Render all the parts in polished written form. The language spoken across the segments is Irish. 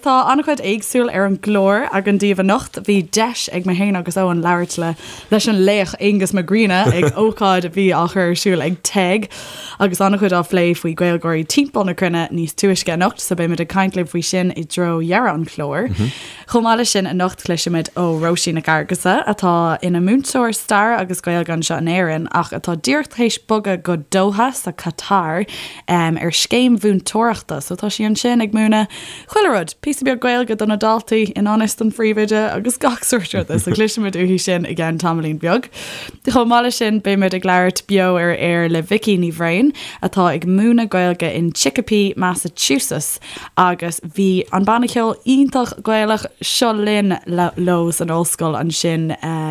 tá an-chuid éagsúil ar an gclár againn daoibh anocht. Bhí deis ag mé féin agus Eoin labhairt le leis an laoch Aonghus Mac Grianna ag ócáid a bhí á chur ar siúl ag TEG agus an-chuid á phlé faoi Gaeilgeoirí timpeall na cruinne níos túisce anocht, so beimid ag caint libh faoi sin i dtreo dheireadh an chláir. Chomh maith leis sin, anocht cloisfimid ó Róisín Nic Fhearghusa, atá ina múinteoir staire agus Gaeilge anseo in Éirinn ach atá díreach théis bogadh go Doha sa Qatar ar scéim mhúinteoireachta. So tá sí ansin ag múineadh chuile rud, píosa beag Gaeilge do na daltaí i ngan fhios don phríomhoide agus gach sórt ruda. So cloisfimid uaithi sin i gceann tamaillín beag. Chomh maith leis sin, beimid ag labhairt beo ar aer le Vicky Ní Bhrain, atá ag múineadh Gaeilge in Chicopee, Massachusetts. Agus bhí an banna ceoil iontach Gaelach Seo Linn leo san ollscoil ansin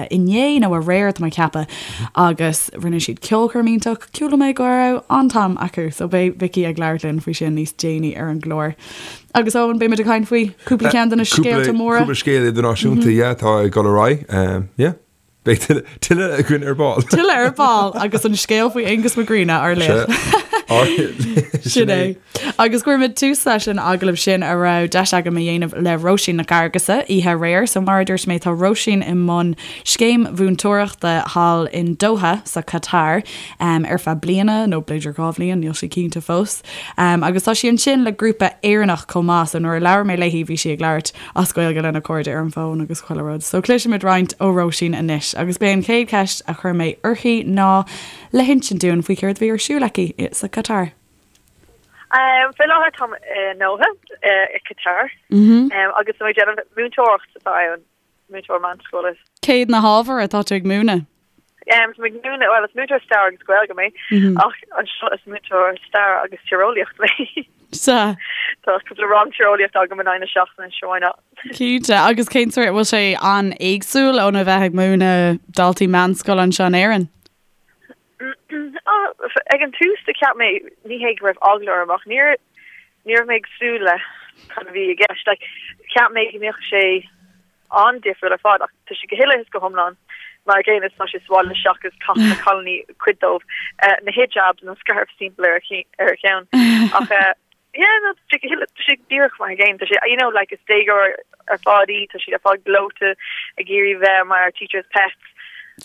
inné nó aréir tá mé ag ceapadh agus rinne siad ceolchoirm iontach. Chuala mé go raibh an-am acu so beidh Vicky ag labhairt linn faoi sin níos déanaí ar an gclár. Agus Eoin, beimid ag caint faoi cúpla ceann de na scéalta móra. Cúpla scéal idirnáisiúnta, yeah, atá ag dul ar aghaidh. Yeah. Beidh tuilleadh againn ar ball. Tuilleadh ar ball agus an scéal faoi Aonghus Mac Grianna ár laoch. Sin é. Agus cuirfimid tús leis an agallamh sin a raibh deis agam a dhéanamh le Róisín Nic Fhearghusa oíche aréir. So mar a dúirt mé tá Róisín i mbun scéim mhúinteoireachta thall in Doha sa Qatar ar feadh bliana nó b'fhéidir 2 bhliain, níl sí cinnte fós. Agus tá sí ansin le grúpa Éireannach chomh maith so nuair a labhair mé léi bhí sí ag labhairt as Gaeilge lena cairde ar an bhfón agus chuile rud. So cloisfimid roinnt ó Róisín anois agus b'é an chéad cheist a chuir mé uirthi ná le hinsint dúinn faoi céard a bhí ar siúl aici sa Qatar. Faoi láthair táim i nDoha i Qatar agus tá mé ag déanamh múinteoireacht atá ann, múinteoir meánscoile. Céard na hábhair atá tú ag múineadh? Tá mé ag múineadh, bhuel is múinteoir stair agus Gaeilge mé ach anseo is múinteoir stair agus tíreolaíocht mé. Sea. Tá cúpla rang tíreolaíocht agam in aghaidh na seachtaine, sure why not. Cinnte, agus cén sórt, bhfuil sé an-éagsúil óna bheith ag múineadh daltaí meánscoile anseo in Éirinn? Ag an tús do cheap mé, ní hé go raibh eagla orm ach níor ní raibh mé ag súil le cad a bhí i gceist. Like, cheap mé go mbeadh sé an-difriúil ar fad ach tá sé go huile is go hiomlán mar an gcéanna is tá sé sa bhaile seachas caitheann na cailíní cuid dóibh na hijabs nó scairf timpeall ar a cheann ach yeah no tá sé go huile tá sé díreach mar an gcéanna tá sé you know like is déagóir ar fad í tá siad ar fad gleoite ag iarraidh bheith mar teacher's pets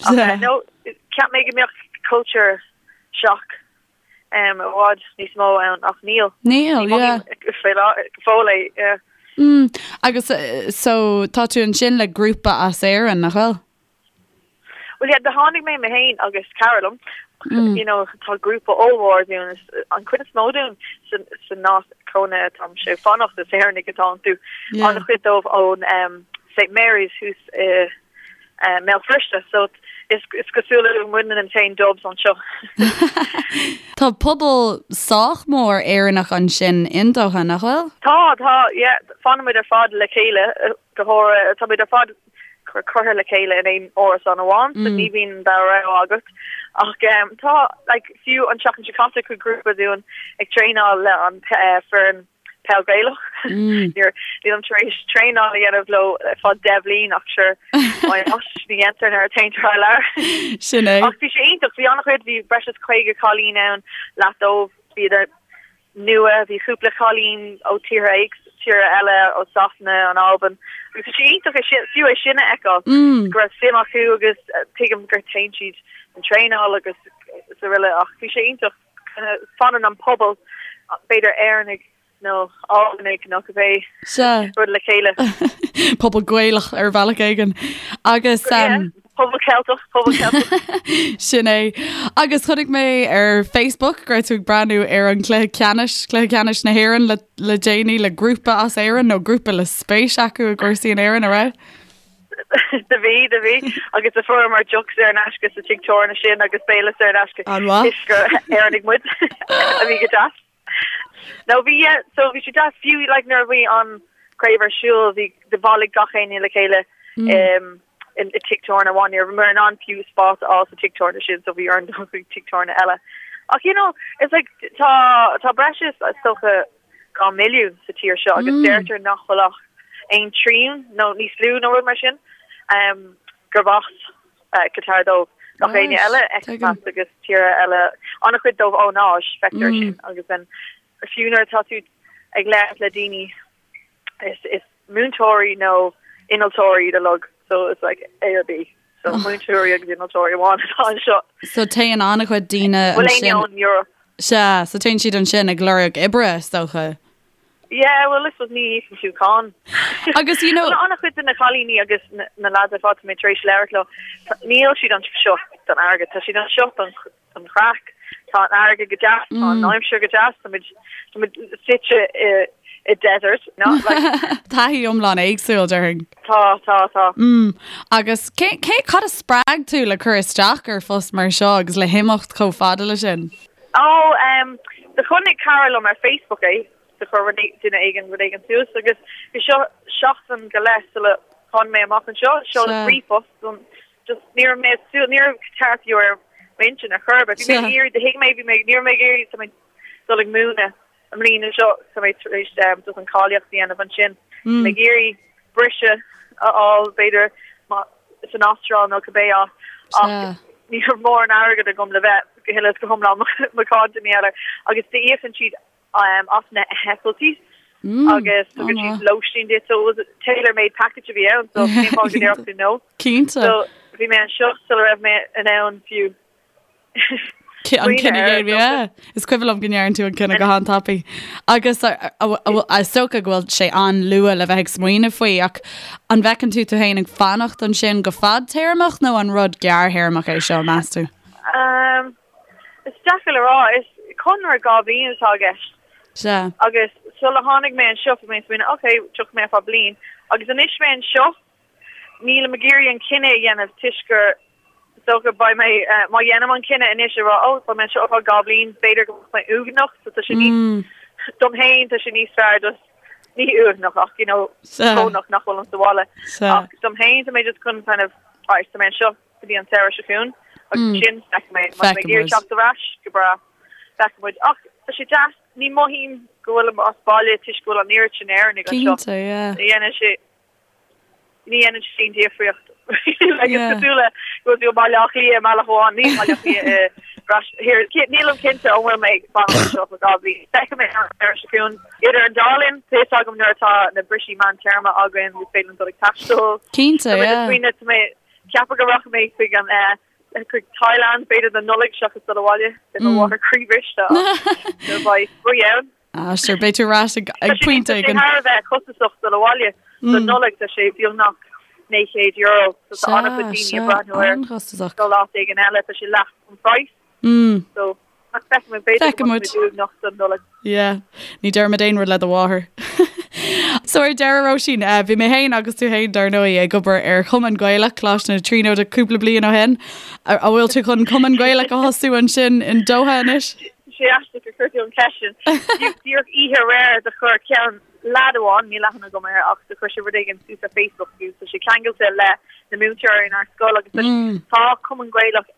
ach no cheap mé go mbeadh culture shock i bhfad níos mó ann ach níl. Níl, yeah. Go fóill é, yeah. Mm, agus so tá tú ansin le grúpa as Éirinn, nach bhfuil? Well yeah, do tháinig mé mé féin agus cara liom, mm. you know, tá grúpa ollmhór dúinn, an chuid is mó dúinn san áit cónaithe atáimse ag fanacht is Éireannaigh atá iontu. Yeah. An-chuid dóibh ón um, St Mary's thuas i i mBéal Feirste, so is cosúil le muidne an t-aon Dubs anseo. Tá pobal sách mór Éireannach ansin in Doha, nach bhfuil? Tá, tá, yeah, fanann muid ar fad le chéile, go háirithe, tá muid ar fad curtha le chéile in aon árasán amháin, so ní bhíonn an dara rogha agat. Ach tá, like, fiú an tseachtain seo caite chuaigh grúpa dúinn ag traenáil le an foireann peil Gaelach. Nílim tar éis traenáil a dhéanamh leo ar feadh 10 bhliain ach sure why not ní dhéantar nuair a téann thar lear. Sin é. Ach bhí sé iontach, bhí an-chuid, bhí breis is 50 cailín ann, leath dóibh bhíodar nua, bhí cúpla cailín ó tíortha tíortha eile ó Sasana, an Albain. Agus bhí sé iontach é sin, fiú é sin a fheiceáil, go raibh suim acu agus tuigim gur téann siad an traenáil agus is araile ach bhí sé iontach. Fanann an pobal, b'fhéidir Éireannaigh nó Albanaigh nó cibé rud le chéile. Pobal Gaelach ar bhealach éigin. Agus. Pobal Ceilteach, pobal Ceilteach. Sin é. Agus chonaic mé ar Facebook go raibh tú ag breathnú ar an cluiche ceannais, cluiche ceannais na hÉireann le le déanaí le grúpa as Éirinn nó grúpa le spéis acu i gcúrsaí in Éirinn, an raibh? Do bhí, do bhí. Agus do fuaireamar deoch saor in aisce sa tigh tábhairne sin agus béile saor in aisce. An-mhaith. Toisc gur Éireannaigh muid a bhí go deas. No bhí, yeah, so bhí sé deas fiú like nuair a bhí an craobh ar siúl bhí do bhailigh gach éinne le chéile um, in i tigh tábhairne amháin. Ní rabhamar in ann fiú spás a fháil sa tigh tábhairne sin so bhí orainn dul chuig tigh tábhairne eile. Ach you know, it's like tá tá breis is is dócha 2 milliún sa tír seo agus deirtear nach bhfuil ach aon trian nó níos lú nó rud mar sin gurb as Qatar dóibh. Gach éinne eile, expats agus tíortha eile, an-chuid dóibh ón Áis, feictear sin agus then fiú nuair atá tú ag labhairt le daoine. Is is múinteoirí nó innealtóirí iad uilig so it's like A or B. So múinteoirí agus innealtóirí amháin atá anseo. So téann an-chuid daoine Bhfuil éinne ansin. ón Europe? Sea, so téann siad ansin ag lorg oibre, is dócha. Yeah, well, I suppose ní íocann tú cáin. Agus you know. Bhuel, an-chuid de na cailíní agus na lads ar fad tá mé tar éis labhairt leo, níl siad anseo don airgead, tá siad anseo don don chraic. Tá an fharraige go deas, tá an aimsir go deas, tá muid tá muid suite i i desert, no? Like. Taithí iomlán éagsúil, déarfainn. Tá, tá, tá. Mm. Agus cé, cé, cad a spreag tú le cur isteach ar phost mar seo agus le himeacht chomh fada le sin? Ó, um, do chonaic cara liom ar Facebook é, do chuir rud é, duine éigin rud éigin suas agus bhí seo seachtain go leith sula tháinig mé amach anseo, seoladh ríomhphost don Just ní raibh mé ag súil, ní raibh Qatar fiú ar m'intinn ar chor ar bith. Bhí mé ag iarraidh, do thuig mé, bhí mé, ní raibh mé ag iarraidh, tá mé dul ag múineadh i mbliana seo, tá mé tar éis just an cáilíocht a dhéanamh ansin. Bhí mé ag iarraidh briseadh a fháil b'fhéidir san Astráil nó cibé áit ach ní raibh mórán airgead agam le bheith go huile is go hiomlán macánta mar gheall air agus d'íocann siad as na heitiltí agus tugann siad lóistín duit so it was a tailor made package a bhí ann so cén fáth go ndéarfadh tú no? Cinnte. So bhí mé anseo sula raibh mé in ann fiú An cinneadh a dhéanamh, yeah. Is cuimhin liom go ndearna tú an cinneadh go han-tapaidh. Agus is dócha go bhfuil sé an-luath le bheith ag smaoineamh faoi ach an bhfeiceann tú tú féin ag fanacht ansin go fadtéarmach nó an rud gearrthéarmach é seo, meas tú? Um, Is deacair le rá. Is conradh 2 bhliain atá i gceist. Sea. Agus sula tháinig mé anseo bhí mé ag smaoineamh ok, tiocfaidh mé ar feadh bliain. Agus anois mé anseo, nílim ag iarraidh an cinneadh a dhéanamh toisc gur is dócha beidh mé, má dhéanaim an cinneadh anois a rá oh beidh mé anseo ar feadh 2 bhliain, b'fhéidir go mbeadh mé uaigneach so tá sé níos, dom féin tá sé níos fearr just, ní uaigneach ach you know, brónach nach bhfuilim sa bhaile. Ach dom féin tá mé just chun kind of, alright, tá mé anseo, go dtí an samhradh seo chugainn agus ansin feicfidh mé má tá mé ag iarraidh teacht ar ais, go breá, feicfidh muid. Ach tá sé deas, ní mothaím go bhfuilim as baile toisc go bhfuil an oiread sin Éireannaigh anseo. Cinnte, yeah. Ní dhéanann sé, ní dhéanann sé aon difríocht. Like, is cosúil le go bhfuil tú i mBaile Átha Cliath i mbealach amháin, ní i mBaile Átha Cliath i Ras, here, nílim cinnte an bhfuil mé ag fanacht anseo for 2 bhliain. Feicfidh mé an samhradh seo chugainn. Idir an dá linn, tá fhios agam nuair atá na brisí meántéarma againn, is féidir linn dul ag taisteal. Cinnte, Tá mé yeah. smaoineamh, tá mé ceapadh go rachaidh mé chuig an chuig Thailand b'fhéidir don Nollaig seachas dul abhaile beidh mo mháthair croíbhriste ach nuair beidh spraoi ann. Ah sure beidh tú ar ais ag Tá sé pointe tá sé éigin. thar a bheith costasach dul abhaile don Nollaig tá sé beagnach €900 so tá an-chuid Sea, daoine ag sea, breathnú ar an-chostasach. dul áit éigin eile tá sé leath an praghas so ach feicfidh muid b'fhéidir go Feicfidh muid. mbeidh muid uaigneach don Nollaig. Yeah. Ní déarfaimid aon rud le do mháthair. So ar deireadh Róisín, eh, bhí mé féin agus tú féin dar ndóigh ag obair ar Chumann Gaelach Coláiste na Tríonóide cúpla bliain ó shin. An bhfuil tú chun Cumann Gaelach a thosú ansin in Doha anois? Tá sé aisteach gur chuir tú an cheist sin. Díreach oíche aréir do chuir ceann leaid amháin, níl aithne agam air ach do chuir sé rud éigin suas ar Facebook agus tá sé ceangailte le na múinteoirí inár scoil agus tá Cumann Gaelach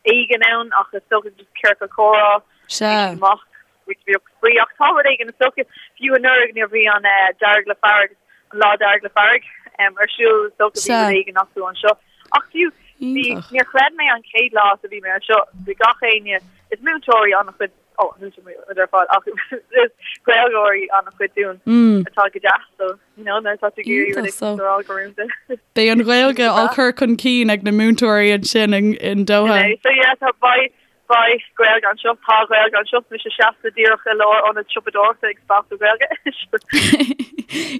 éigin ann ach is dócha just ciorcal comhrá Sea. amach roinnt bheag spraoi ach tá rud éigin is dócha fiú anuraidh nuair a bhí an Dearg le Fearg an Lá Dearg le Fearg ar siúl is dócha bhí Sea. rud éigin acu anseo ach fiú bhí Iontach. níor chreid mé an chéad lá a bhí mé anseo bhí gach éinne is múinteoirí an-chuid ó múinteoirí ar fad ach is Gaeilgeoirí an-chuid dúinn atá go deas so you know nuair atá tú ag iarraidh rud Iontach, so. éigin a rá go rúnda. Beidh an Ghaeilge á cur chun cinn ag na múinteoirí ansin in Doha. So yeah, tá beidh beidh Gaeilge anseo, tá Gaeilge anseo, mise seasta díreach i lár ionad siopadóireachta ag spalpadh Gaeilge.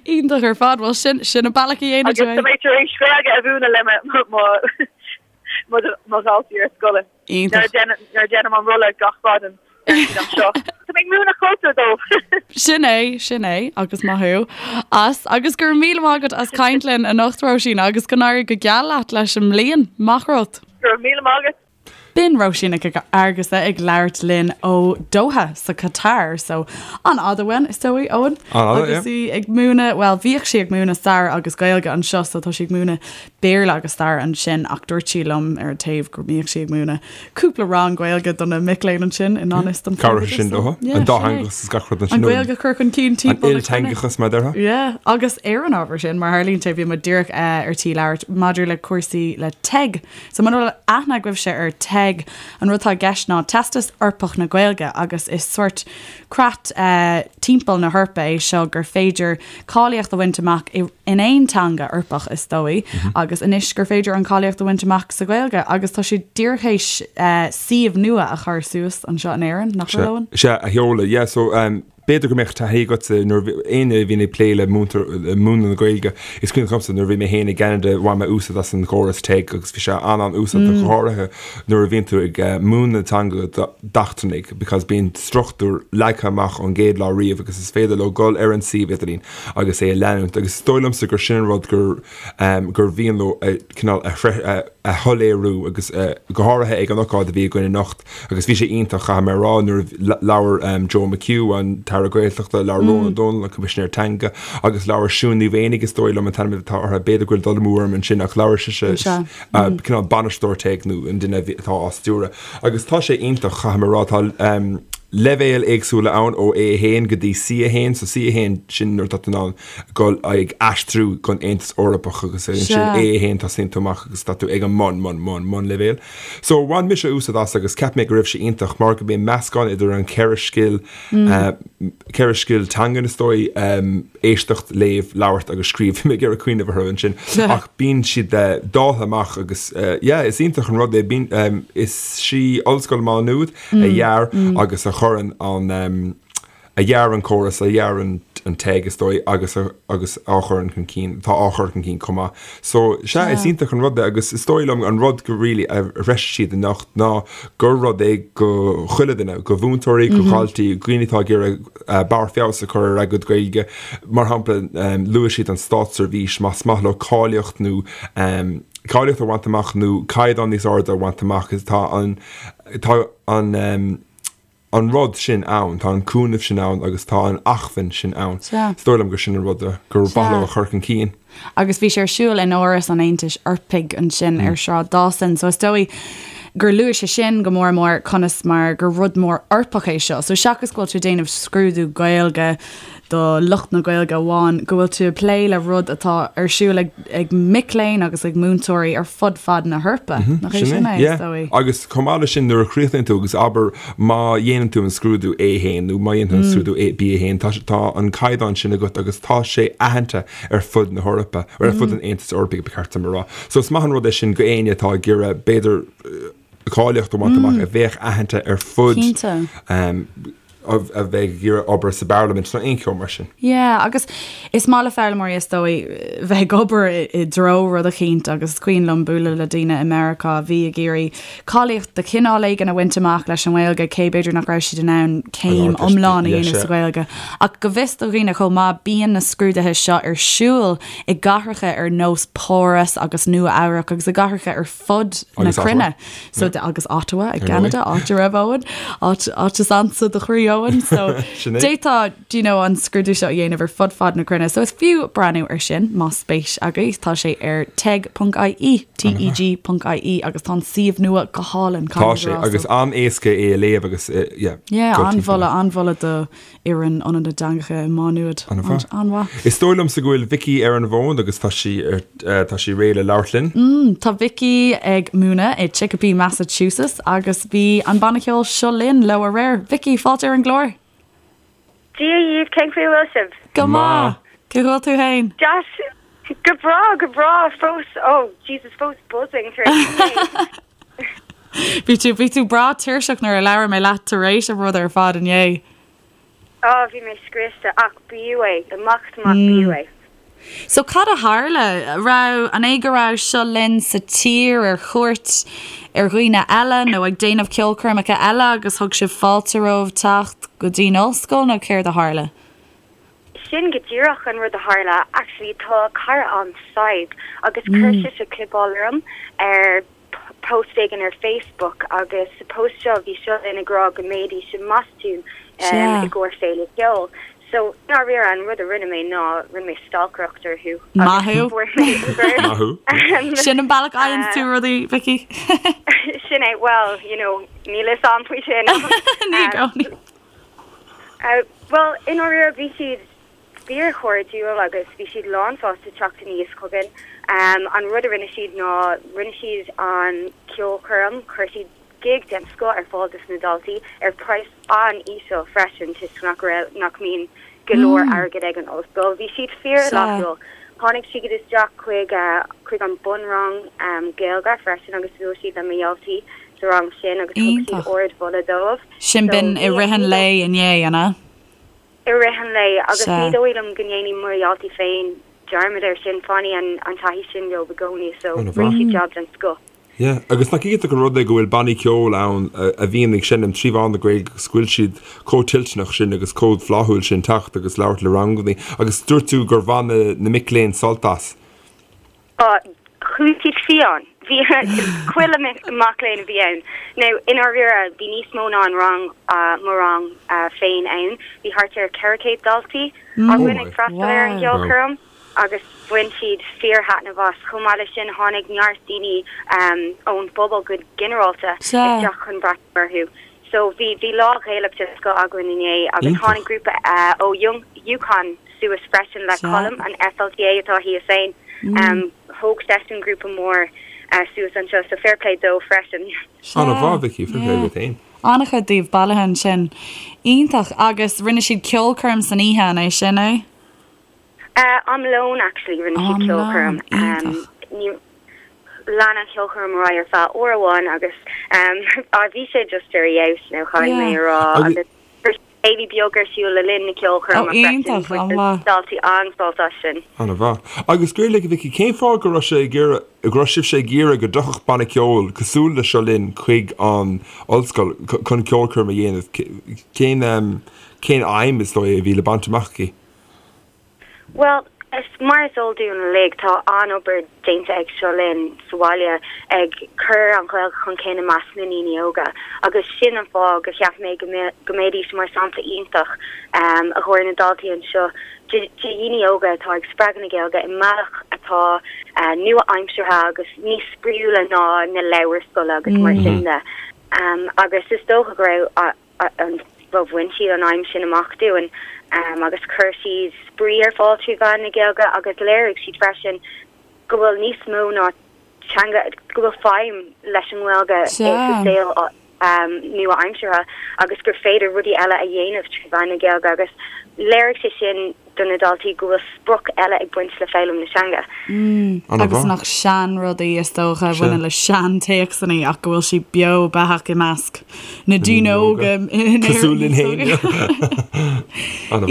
Iontach ar fad, bhuel sin sin an bealach a dhéanann Agus tú tá é. mé tar éis Gaeilge a mhúineadh le mo mo mo mo dhaltaí ar scoil. Iontach. Nuair a dhéanaim an rolla gach maidin anseo. Tá mé ag múineadh cultúr dóibh. Sin é, sin é, agus maith thú as. Agus go raibh míle maith agat as caint linn anocht, Róisín, agus go n-éirí go geal leat leis an mbliain. Maith rud. Go raibh míle maith agat. B'in Róisín Nic Fhearghusa ag labhairt linn ó Doha sa Qatar. So, an-fhada uainn, is dóigh, Eoin. An-fhada, Agus yeah. í ag múineadh, bhuel, bhíodh sí ag múineadh stair agus Gaeilge anseo, so tá sí ag múineadh Béarla agus stair ansin ach dúirt sí liom ar an taobh go mbíodh sí ag múineadh cúpla rang Gaeilge do na mic léinn ansin i ngan fhios don Cabhróidh sin dótha. An dátheangachas is gach rud ansin. An Ghaeilge a chur chun cinn timpeall na cruinne. An ilteangachas mar a déarfá. Yeah, agus ar an ábhar sin, mar tharlaíonn sé, bhí muid díreach ar tí labhairt maidir le cúrsaí le TEG. So muna bhfuil aithne agaibhse ar TEG, TEG. An rud atá i gceist ná Teastas Eorpach na Gaeilge agus is sórt creat timpeall na hEorpa é seo gur féidir cáilíocht a bhaint amach in aon teanga Eorpach is dóigh agus anois gur féidir an cáilíocht a bhaint amach sa Ghaeilge agus tá siad díreach théis suíomh nua a chur suas anseo in Éirinn, nach bhfuil Eoin? Sea, a sheoladh, yeah, so b'fhéidir go mbeadh taithí agatsa nuair a bhí, éinne a bhíonn ag plé le múinteoir, le múineadh na Gaeilge, is cuimhin liomsa nuair a bhí mé féin i gCeanada bhain mé úsáid as an gcóras TEG agus bhí sé an-an-úsáideach go háirithe nuair a bhíonn tú ag múineadh na teanga d'eachtrannaigh because bíonn struchtúr leagtha amach ón gcéad lá riamh agus is féidir leo dul ar an suíomh idirlín agus é a leanúint agus is dóigh liomsa gur sin an rud gur gur mhian leo a cineál a a shoiléiriú agus go háirithe ag an ocáid a bhí againn anocht agus bhí sé iontach caithfidh mé a rá nuair a labhair Joe McHugh an tAire Gaeltachta labhair Rónán Ó Domhnaill an Coimisinéir Teanga agus labhair Siún Ní Mhaonaigh is dóigh liom an t-ainm atá uirthi b'fhéidir go bhfuil dul amú orm ansin ach labhair sise cineál bainisteoir TEG nó an duine atá á stiúradh. Agus tá sé iontach, caithfidh mé a rá, tá leibhéil éagsúla ann ó A1 go dtí C1, so C1 sin nuair atá tú in ann dul ag aistriú don Aontas Eorpach agus ansin A1 tosaíonn tú amach agus tá tú ag an mbun, mbun, mbun, mbunleibhéal. So bhain mise úsáid as agus cheap mé go raibh sé iontach mar go mbíonn meascán idir an cheithre scil, cheithre scil teangan is dóigh, éisteacht, léamh, labhairt agus scríobh. Bhí mé ag iarraidh cuimhneamh orthu ansin. Ach bíonn siad dáilte amach agus yeah, is iontach an rud é. Bíonn, is í Ollscoil Mhá Nuad a dhear agus a chuireann an, a dhear an córas, a dhear an TEG is dóigh agus a, agus á chuireann chun cinn, atá á chur chun cinn chomh maith. So, sea, is iontach an rud é agus is dóigh liom an rud go really a threisigh siad anocht ná gur rud é go chuile duine, go mhúinteoirí, go dhaltaí, dhaoine atá ag iarraidh barr feabhas a chur ar a gcuid Gaeilge. Mar shampla, luaigh siad an státseirbhís, más maith leo cáilíocht nó cáilíocht a bhaint amach nó caighdeán níos airde a bhaint amach, tá an tá an an rud sin ann, tá an cúnamh sin ann agus tá an acmhainn sin ann. Is dóigh liom gur sin an rud gur mhaith leo a chur chun cinn. Agus bhí sé ar siúl in Áras an Aontais Eorpaigh ansin ar Shráid Dawson, so is dóigh gur luaigh sé sin go mór mór conas mar gur rud mór Eorpach é seo. So seachas go bhfuil tú ag déanamh scrúdú Gaeilge do lucht na Gaeilge amháin, go bhfuil tú ag plé le rud atá ar siúl ag ag mic léinn agus ag múinteoirí ar fud fad na hEorpa. Nach é sin é, is dóigh? Agus chomh maith leis sin nuair a chríochnaíonn tú agus abair má dhéanann tú an scrúdú A1 nó má dhéanann tú an scrúdú B1 tá tá an caighdeán sin agat agus tá sé aitheanta ar fud na hEorpa, ar fud an Aontais Eorpaigh ba cheart dom a rá. So is maith an rud é sin go éinne atá ag iarraidh b'fhéidir cáilíocht a bhaint amach a bheadh aitheanta ar fud a bheidh ag iarraidh obair sa bparlaimint nó aon cheo mar sin. Yeah, agus is maith le foghlaimeoirí is dóigh bheith ag obair i dtreo rud eicínt agus is cuimhin liom bualadh le daoine i Meiriceá a bhí ag iarraidh cáilíocht de chineál éigin a bhaint amach leis an nGaeilge, cé b'fhéidir nach raibh siad in ann céim iomlán a dhéanamh sa Ghaeilge. Ach go bhfios do dhaoine chomh maith, bíonn na scrúduithe seo ar siúl i gcathracha ar nós Páras agus Nua Eabhrac agus i gcathracha ar fud na cruinne. So agus Ottawa i gCeanada, áit a raibh Eoin, áit áit is ansa do chroí Eoin. So d'fhéadfá do you know, an scrúdú seo a dhéanamh ar fud fad na cruinne. So is fiú breathnú ar sin más spéis agaibh. Tá sé ar teg.ie, teg.ie agus tá an suíomh nua go hálainn. Tá sé agus an-éasca é a léamh agus yeah. Yeah, an-mholadh, an-mholadh do fhoireann Ionad na dTeangacha i Má Nuad. An-mhaith. Is dóigh liomsa go bhfuil Vicky ar an bhfón agus tá sí ar tá sí réidh le labhairt linn. Mm, tá Vicky ag múineadh i Chicopee, Massachusetts agus bhí an banna ceoil Seo Linn leo aréir. Vicky, fáilte ar an gclár. Dia dhaoibh, cén chaoi a bhfuil sibh? Go maith! Cén chaoi a bhfuil tú fhéin? Deas, go breá, go breá, fós, oh Jesus, fós buzzing tar éis inné. Bhí tú, bhí tú breá tuirseach nuair a labhair mé leat tar éis an rud ar fad inné. Oh, bhí mé scriosta, ach b'fhiú é, amach is amach b'fhiú é. So cad a tharla? Raibh, an é go raibh Seo Linn sa tír ar chuairt ar dhaoine eile nó ag déanamh ceolchoirmeacha eile agus thug sibh fáilte romhaibh teacht go dtí'n ollscoil nó céard a tharla? Sin go díreach an rud a tharla. Actually tá cara a'm, Sadhbh, agus chuir sise clipeáil orm ar post éigin ar Facebook agus sa post seo bhí Seo Linn ag rá go mbeidís i mBostún i gcomhair féile ceoil. So, i ndáiríre, an rud a rinne mé ná rinne mé stalcaireacht orthu Maith thú! fuair mé Maith thú! Sin an bealach a fhaigheanns tú rudaí, Vicky. Sin é, well, you know, níl fhios a'm faoi sin. Ní i gcónaí. Bhuel, i ndáiríre, bhí siad fíorchairdiúil agus bhí siad lánsásta teacht aníos chugainn. An rud a rinne siad ná rinne siad an ceolchoirm, chuir siad. gig den scoth ar fáil dos na daltaí ar praghas an-íseal freisin toisc nach raibh, nach mbíonn go leor airgead ag an ollscoil. Bhí siad fíor-fhlaithiúil. Tháinig siad isteach chuig, chuig an bunrang Gaeilge freisin agus bhuail siad le mo dhaltaí sa rang sin agus thug siad ardmholadh dóibh. Sin b'in i rith an lae inné, an ea? I rith an lae agus ní dóigh liom go ndéanfaidh mo dhaltaí féin dearmad air sin, fanfaidh an taithí sin leo i gcónaí so rinne siad jab den scoth. Yeah, agus nach iontach an rud é go bhfuil bannaí ceoil ann a bhíonn ag seinm trí mheán na Gaeilge agus go bhfuil siad chomh toilteanach sin agus chomh flaithiúil sin teacht agus labhairt le rangannaí. Agus dúirt tú gur bhain na, na mic léinn sult as. Á, chuaigh siad fiáin. Bhí chuile mac léinn a bhí ann. Now, i ndáiríre, bhí níos mó ná an rang, mo rang féin ann. Bhí thart ar 400 daltaí againn ag freastal ar an gceolchoirm. agus bhain siad fíor-thaitneamh as. Chomh maith leis sin, tháinig neart daoine ón bpobal go ginearálta isteach chun breathnú orthu. So bhí bhí lá Ghaelach den scoth againn inné agus tháinig grúpa ó UConn suas freisin le Colm, an FLTA atá thíos ann. Thóg seisean grúpa mór suas anseo, so fair play dó freisin. An-mhaith, Vicky, fair play duit féin. An-chuid díobh bailithe ansin. Iontach. Agus rinne siad ceolchoirm san oíche, an é sin é? Am lóin actually rinne siad ceolchoirm. Iontach. Lean an cheolchoirm ar aghaidh ar feadh uair amháin agus bhí sé just ar fheabhas nó caithfidh mé a rá agus chuir siad céilí beag ar siúl le linn na ceolchoirme freisin. Iontach, an-mhaith. Daltaí an-sásta as sin. An-mhaith. Agus go raibh Vicky, cén fáth go raibh sé ag iarraidh, go raibh sibhse ag iarraidh go dtiocfadh banna ceoil cosúil le Seo Linn chuig an ollscoil chun ceolchoirm a dhéanamh? Cén, cén aidhm is dóigh a bhí le baint amach aici? Bhuel, is mar is eol dúinn uilig, tá an-obair déanta ag Seo Linn sa bhaile ag cur an Ghaeilge chun cinn i measc na ndaoine óga agus sin an fáth gur cheap mé go mbeidís mar sampla iontach i gcomhair na daltaí anseo de dhaoine óga atá ag spreagadh na Gaeilge i mbealach atá nua-aimseartha agus níos spraíúla ná na leabhair scoile agus mar sin de. Agus is dócha go raibh an bhuel bhain siad an aidhm sin amach dúinn agus chuir siad spraoi ar fáil trí mheán na Gaeilge agus léirigh siad freisin go bhfuil níos mó ná teanga, go bhfuil feidhm leis an nGaeilge sa saol nua-aimseartha agus gur féidir rudaí eile a dhéanamh trí mheán na Gaeilge agus léirigh sé sin do na daltaí go bhfuil sprioc eile ag baint le foghlaim na teanga. Agus nach seanrudaí is dócha a bhaineann le seantéacsanna ach go bhfuil sí beo beathach i measc na daoine óga in Éirinn. Cosúil linn féin.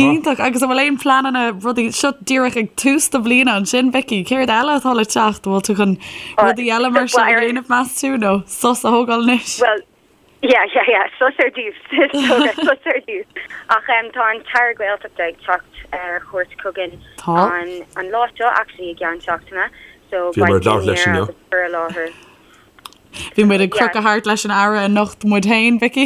Iontach. Agus an bhfuil aon pleananna rudaí, seo díreach ag tús do bhliana ansin, Vicky, céard eile atá le teacht? An bhfuil tú chun rudaí eile mar seo a dhéanamh meas tú nó sos a thógáil anois? Bhuel, Yeah, yeah, yeah, sos ar dtús, sos ar dtús. Ach em, tá an tAire Gaeltachta ag teacht ar chuairt chugainn Tá. an, an lá seo actually i gceann seachtaine, so Bhí beidh muid ag labhairt leis dinnéar inniu. agus cur i láthair. Bhí muid ag Yeah. crochadh thart leis an Aire anocht muid féin, Vicky.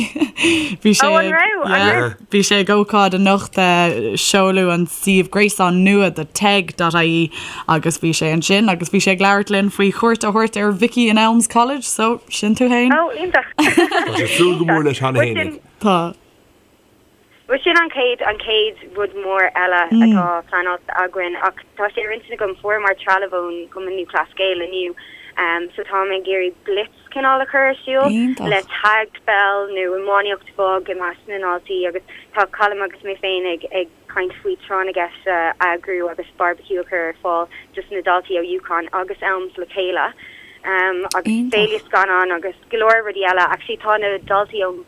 Bhí sé Oh, an ag, raibh? An yeah, raibh? bhí sé ag ócáid anocht eh, seoladh an suíomh gréasáin nua do TEG.ie agus bhí sé ansin agus bhí sé ag labhairt linn faoi chuairt a thabhairt ar Vicky in Elms College, so sin tú fhéin. Oh, iontach. Tá sé ag súil go mór leis cheana Bhuel fhéin sin, ag. Tá. bhuel sin an chéad, an chéad rud mór eile atá pleanáilte againn ach tá sé ar intinn agam, fuaireamar trealamh ón gCumann Lúthchleas Gael inniu so táim ag iarraidh blitz cineál a chur ar siúl Iontach. le tag peil nó iománaíocht bhog i measc na ndaltaí agus tá Colm agus mé féin ag, ag caint faoi tráth na gceist a eagrú agus barbecue a chur ar fáil dos na daltaí ó UConn agus Elms le chéile agus féile scannán agus go leor rudaí eile. Actually tá na daltaí ón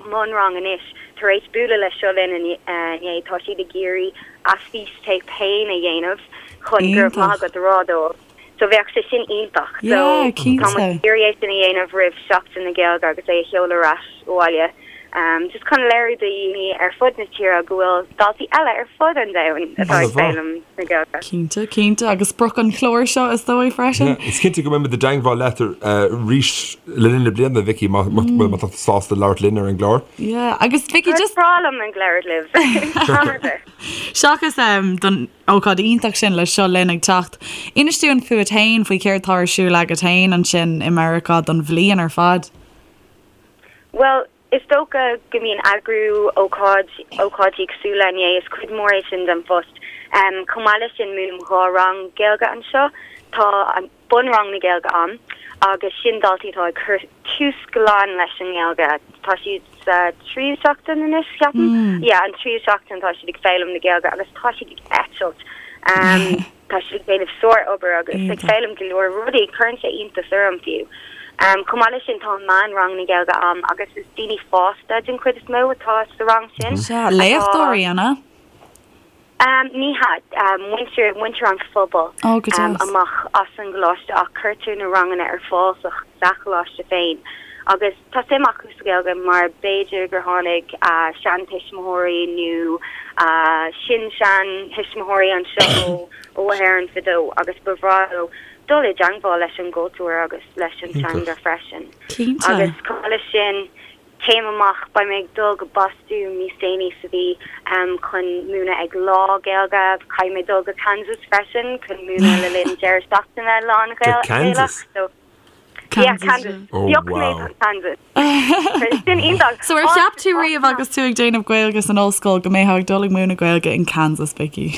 mbunrang anois tar éis bualadh le Seo Linn inné, tá siad ag iarraidh a fístéip féin a dhéanamh chun go raibh maith agat a rá dóibh. So bheadh sé sin iontach. So Yeah, tá muid cinnte. ag iarraidh é sin a dhéanamh roimh Seachtain na Gaeilge agus é a sheoladh ar ais abhaile. Um, just chun léiriú do dhaoine ar fud na tíre go bhfuil daltaí eile ar fud an domhain atá ag foghlaim na Gaeilge. Cinnte, cinnte, agus sprioc an chláir seo is dóigh freisin. Yeah, is cinnte go mbeidh muid i dteangmháil leat arís le linn na bliana, Vicky, má má tá tú sásta labhairt linn ar an gclár. Yeah, agus Vicky, Is just breá liom ag labhairt libh. Am ar bith. seachas um, don ócáid iontach sin le Seo Linn ag teacht. Inis dúinn fút fhéin, faoi céard tá ar siúl agat fhéin ansin i Meiriceá don bhliain ar fad. Bhuel, is dócha go mbíonn eagrú ócáid, ócáidí cosúil le inné, is cuid mhór é sin den phost. Chomh maith leis sin, múinim 2 rang Gaeilge anseo. Tá an bunrang na Gaeilge ann agus sin daltaí atá ag cur tús glan leis an nGaeilge. Tá siad sa tríú seachtain anois, ceapaim. Yeah, an tríú seachtain tá siad ag foghlaim na Gaeilge agus tá siad ag eitilt. Tá siad ag déanamh sár-obair agus ag foghlaim go leor rudaí. Cuireann sé iontas orm fiú. Chomh maith leis sin tá meánrang na Gaeilge ann agus is daoine fásta den chuid is mó atá sa rang sin. Sea, léachtóirí, an ea? Ní hea, muintir, muintir an phobail amach as an gcoláiste ach cuirtear na ranganna ar fáil sa sa choláiste féin agus tá suim acu sa Ghaeilge mar b'fhéidir gur tháinig a seantuismitheoirí nó a sin-seantuismitheoirí anseo ó Éirinn fadó agus ba bhreá leo dul i dteangmháil leis an gcultúr agus leis an teanga freisin. Agus chomh maith leis sin, Céim amach, beidh mé ag dul go Bostún níos déanaí sa mhí chun múineadh ag Lá Gaeilge. Caithfidh mé dul go Kansas freisin chun múineadh le linn deireadh seachtaine lán Go Kansas? Gaelach. So, yeah, Kansas. Oh, Phioc mé wow. Kansas. Sin iontach. So ar cheap tú riamh agus tú ag déanamh Gaeilge san ollscoil go mbeifeá ag dul ag múineadh Gaeilge in Kansas, Vicky?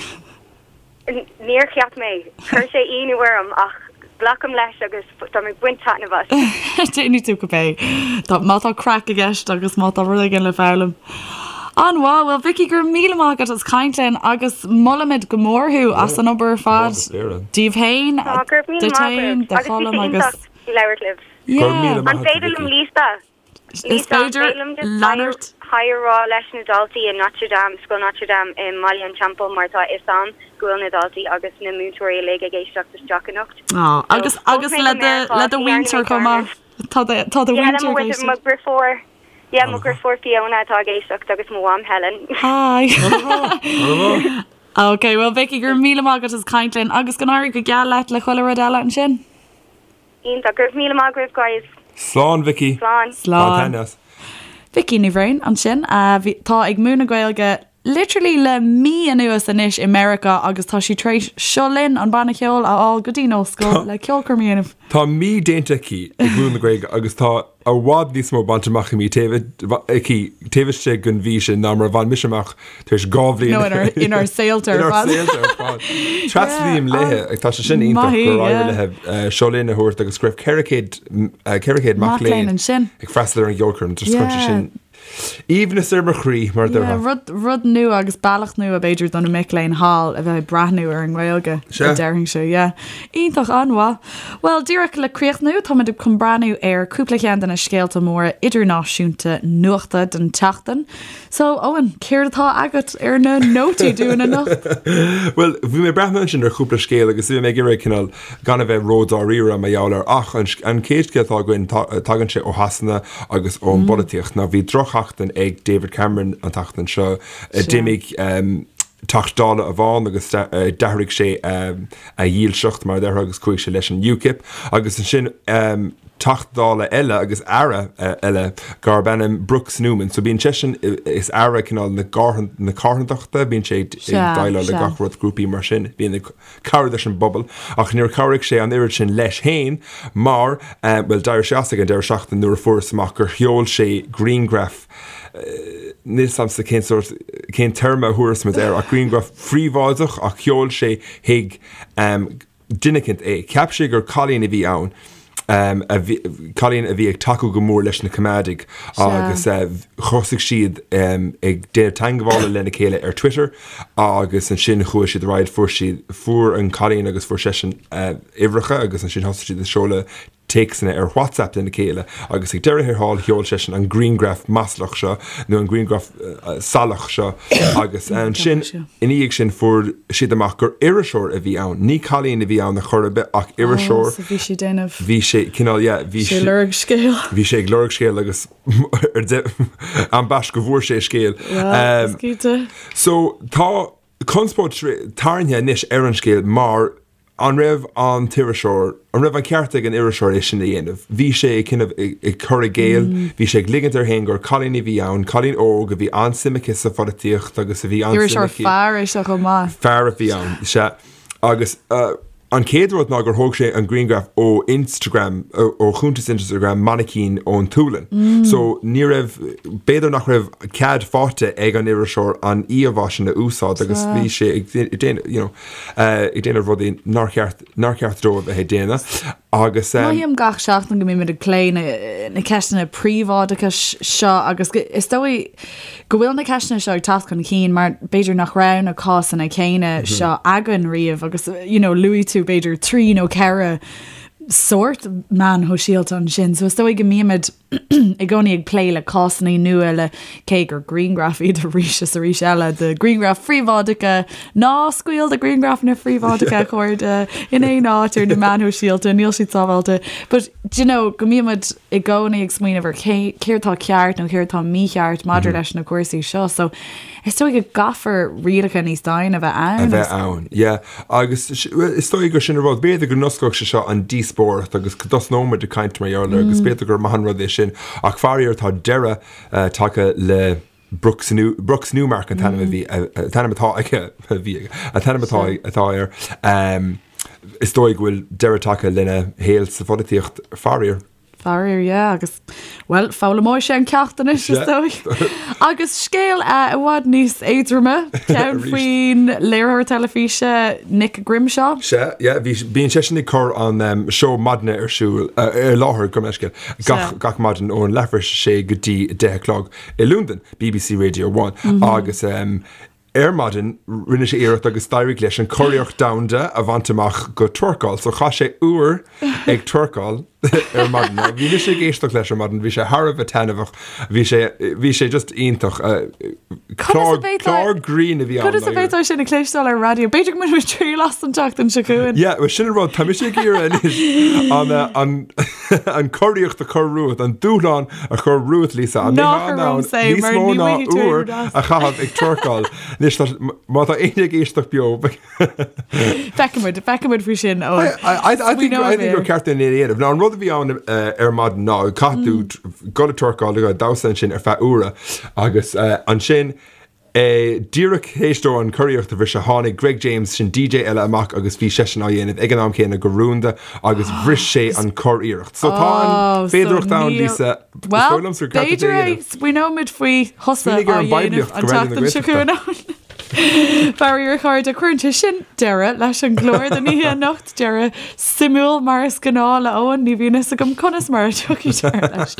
Níor cheap mé. Chuir sé ionadh orm ach glacaim leis agus tá mé ag baint taitneamh as. Déanfaidh tú cibé. Tá, má tá craic i gceist agus má tá rud éigin le foghlaim. An-mhaith. Bhuel, Vicky, go raibh míle maith agat as caint linn agus molaimid go mór thú as an obair ar fad. Díbh féin, Tá, go raibh míle duit maith féin, agaibh. do Agus bhí sé Cholm agus. iontach labhairt libh. Go raibh míle Yeah. maith An agat, féidir liom Vicky. Lisa? Is féidir leanúint. Hi a rá leis na daltaí i Notre Dame, Scoil Notre Dame i mBaile an Teampaill mar tá a fhios a'm go bhfuil na daltaí agus na múinteoirí uilig ag éisteacht isteach anocht. Á, agus agus le do le do mhuintir chomh maith. Tá do tá do Yeah, le mhuintir mo ag mhuintir, mo éisteacht. dheirfiúr, yeah, mo dheirfiúr Fiona atá ag éisteacht agus mo mham Helen. Hi. Ok, well Vicky, go raibh míle maith agat as caint linn agus go n-éirí go geal leat le chuile rud eile ansin. Iontach. Go raibh míle maith agaibh guys. Slán Vicky. Slán. Slán. Bain taitneamh as. Vicky Ní Bhraoin ansin a bhí, tá ag múineadh Gaeilge literally le mí anuas anois i Meiriceá agus tá sí tar éis Seo Linn, an banna ceoil, a fháil go dtí an ollscoil le ceolchoirm a dhéanamh. Tá mí déanta aici ag múineadh na Gaeilge agus tá i bhfad níos mó bainte amach aici taobh aici taobh istigh den mhí sin ná mar a bhain mise amach tar éis 2 bhliain. Nó inár, inár saolta ar Inár fad. saolta ar fad. Tréaslaím léi, tá sé sin iontach Maith í, gur éirigh yeah. léi Seo Linn a thabhairt agus go raibh 400, 400 mac Mac léinn léinn ansin. ag freastal ar an gceolchoirm. Just chuir sé Yeah. sin aoibhneas ar mo chroí, mar a Yeah, déarfá. rud, rud nua agus bealach nua b'fhéidir do na mic léinn thall a bheith ag breathnú ar an nGaeilge, Sea. a déarfainnse, yeah. Iontach, an-mhaith. Bhuel, díreach le críochnú, táimid chun breathnú ar cúpla ceann de na scéalta móra idirnáisiúnta nuachta den tseachtain. So, Eoin, céard atá agat ar na nótaí dúinn anocht? Bhuel, bhí mé ag breathnú ansin ar chúpla scéal agus bhí mé ag iarraidh cineál gan a bheith ródháiríre mar gheall air ach an an chéad scéal atá againn tagann sé ó Shasana agus ón bpolaitíocht. Now bhí drochsheachtain ag David Cameron an tseachtain seo. D'imigh Teachta Dála amháin agus d'athraigh sé a dhílseacht mar a déarfá agus chuaigh sé leis an UKIP agus ansin Teachta Dála eile agus Aire eile darb ainm Brooks Newman. So bíonn seisean is Aire cineál na na carthanachta, bíonn sé ag déileáil le gach rud grúpaí mar sin, bíonn ag cabhrú leis an bpobal, ach níor chabhraigh sé an oiread sin leis féin mar, bhuel, d'éirigh sé as ag an deireadh seachtaine nuair a fuarthas amach gur sheol sé grianghraf, níl 's a'msa cén sórt, cén téarma a thabharfas muid air, ach grianghraf phríobháideach ach sheol sé chuig duine eicínt é. Cheap sé gur cailín a bhí ann. a bhí, cailín a bhí ag tacú go mór leis na Coimeádaigh agus thosaigh siad ag déanamh teagmhála lena chéile ar Twitter agus ansin chuaigh siad ar aghaidh, fuair siad, fuair an cailín agus fuair seisean uimhreacha agus ansin thosaigh siad ag seoladh téacsanna ar WhatsApp lena chéile agus ag deireadh thiar thall sheol seisean an grianghraf maslach seo nó an grianghraf salach seo agus ansin ina dhiaidh sin fuair siad amach gur iriseoir a bhí ann. Ní cailín a bhí ann ar chor ar bith ach iriseoir. So bhí sé déanamh. Bhí sé cineál yeah bhí sé lorg scéal. Bhí sé ag lorg scéal agus ar de ambaist go bhfuair sé scéal. Well, is cinnte. So tá conspóid tarraingthe anois ar an scéal mar An raibh an t-iriseoir, an raibh an ceart ag an iriseoir é sin a dhéanamh? Bhí sé ag cineál ag cur i gcéill, bhí sé ag ligint air féin gur cailín a bhí ann, cailín óg a bhí an-suim aici sa pholaitíocht agus a bhí an-suim Iriseoir aici. fear é seo chomh maith. Fear a bhí ann, sea. Agus. An chéad rud ná gur thóg sé an grianghraf ó Instagram, ó chuntas Instagram mainicín ón tSualainn. So ní raibh, b'fhéidir nach raibh cead faighte ag an iriseoir an íomhá sin a úsáid agus bhí sé ag déanamh, you know, ag déanamh rudaí nár cheart, nár cheart dó a bheith ag déanamh agus. Mothaím gach seachtain go mbímid ag plé na, na ceisteanna príobháideachais seo agus is dóigh, go bhfuil na ceisteanna seo ag teacht chun cinn mar b'fhéidir nach raibh na cásanna céanna seo againn riamh agus you know luaigh tú b'fhéidir 3 nó 4 sórt meáin shóisialta ansin so is dóigh go mbímid i gcónaí ag plé le cásanna nua le cé gur grianghraif iad arís is arís eile de ghrianghraif phríobháideacha ná scaoil do ghrianghrafanna phríobháideacha a chairde in aon áit ar na meáin shóisialta níl siad sábháilte but do you know go mbímid i gcónaí ag smaoineamh ar cé céard atá ceart nó céard atá mícheart maidir leis na cúrsaí seo. So is dóigh go gcaithfear rialacha níos doimhne a bheith ann. A bheith ann, yeah. Agus is dóigh gur sin an rud, b'fhéidir go n-osclódh sé seo an díospóireacht agus go dtosnóimid ag caint mar gheall air agus b'fhéidir gur maith an rud é sin. Ach faraor tá deireadh tagtha le Brooks Brooks Newmark an t-ainm a bhí, an t-ainm atá aige, a bhí aige, an t-ainm atá atá air. Is dóigh go bhfuil deireadh tagtha lena shaol sa pholaitíocht, faraor. Faraor, yeah, agus, bhuel, foghlaimeoidh sé an ceacht anois, is dóigh. Agus scéal i bhfad níos éadroime, ceann faoin léiritheoir teilifíse Nick Grimshaw. Sea, yeah, bhí, bíonn seisean ag cur an seó maidine ar siúl, ar láthair, gabh mo leithscéal, gach, gach maidin ón leathuair tar éis a sé go dtí a deich a chlog i Londain, BBC Radio One, agus ar maidin rinne sé iarracht agus d'éirigh leis an curiarracht domhanda a bhaint amach go twerkáil. So chaith sé uair ag twerkáil ar maidin. Now, bhí mise ag éisteacht leis ar maidin, bhí sé thar a bheith taitneamhach, bhí sé, bhí sé just iontach. Clár, clár grinn a bhí ann. Conas a bheifeá sin a chloisteáil ar raidió? B'fhéidir go mbainfidh muid triail as an tseachtain seo chugainn. Yeah, well sin an rud, tá mise ag iarraidh anois an, an, an curiarracht a chur romhat, an dúshlán a chur romhat, Lisa, an mbeifeá in ann níos mó ná uair a chaitheamh ag twerkáil. Anois, má tá éinne ag éisteacht beo, Feicfimid, feicfimid faoi sin ó. I think I think gur ceart é a dhéanamh. Now an rud a bhí ann ar maidin ná caithfidh tú dul ag twerkáil, ag damhsa ansin ar feadh uaire agus ansin Díreach théis dó an curiarracht a bhriseadh, tháinig Greg James, sin DJ eile, amach agus bhí seisean á dhéanamh ag an am céanna go rúnda agus bhris sé an curiarracht. So tá an féidearthacht ann, Lisa. Is dóigh liomsa gur ceart duit é a dhéanamh. Smaoineoimid faoi thusa á dhéanamh an tseachtain seo chugainn ann. Faraor a chairde, cuireann sé sin deireadh leis an gclár don oíche anocht. Deireadh suimiúil mar is gnáth le Eoin, ní bhíonn fhios agam conas mar a tiocfaidh deireadh leis.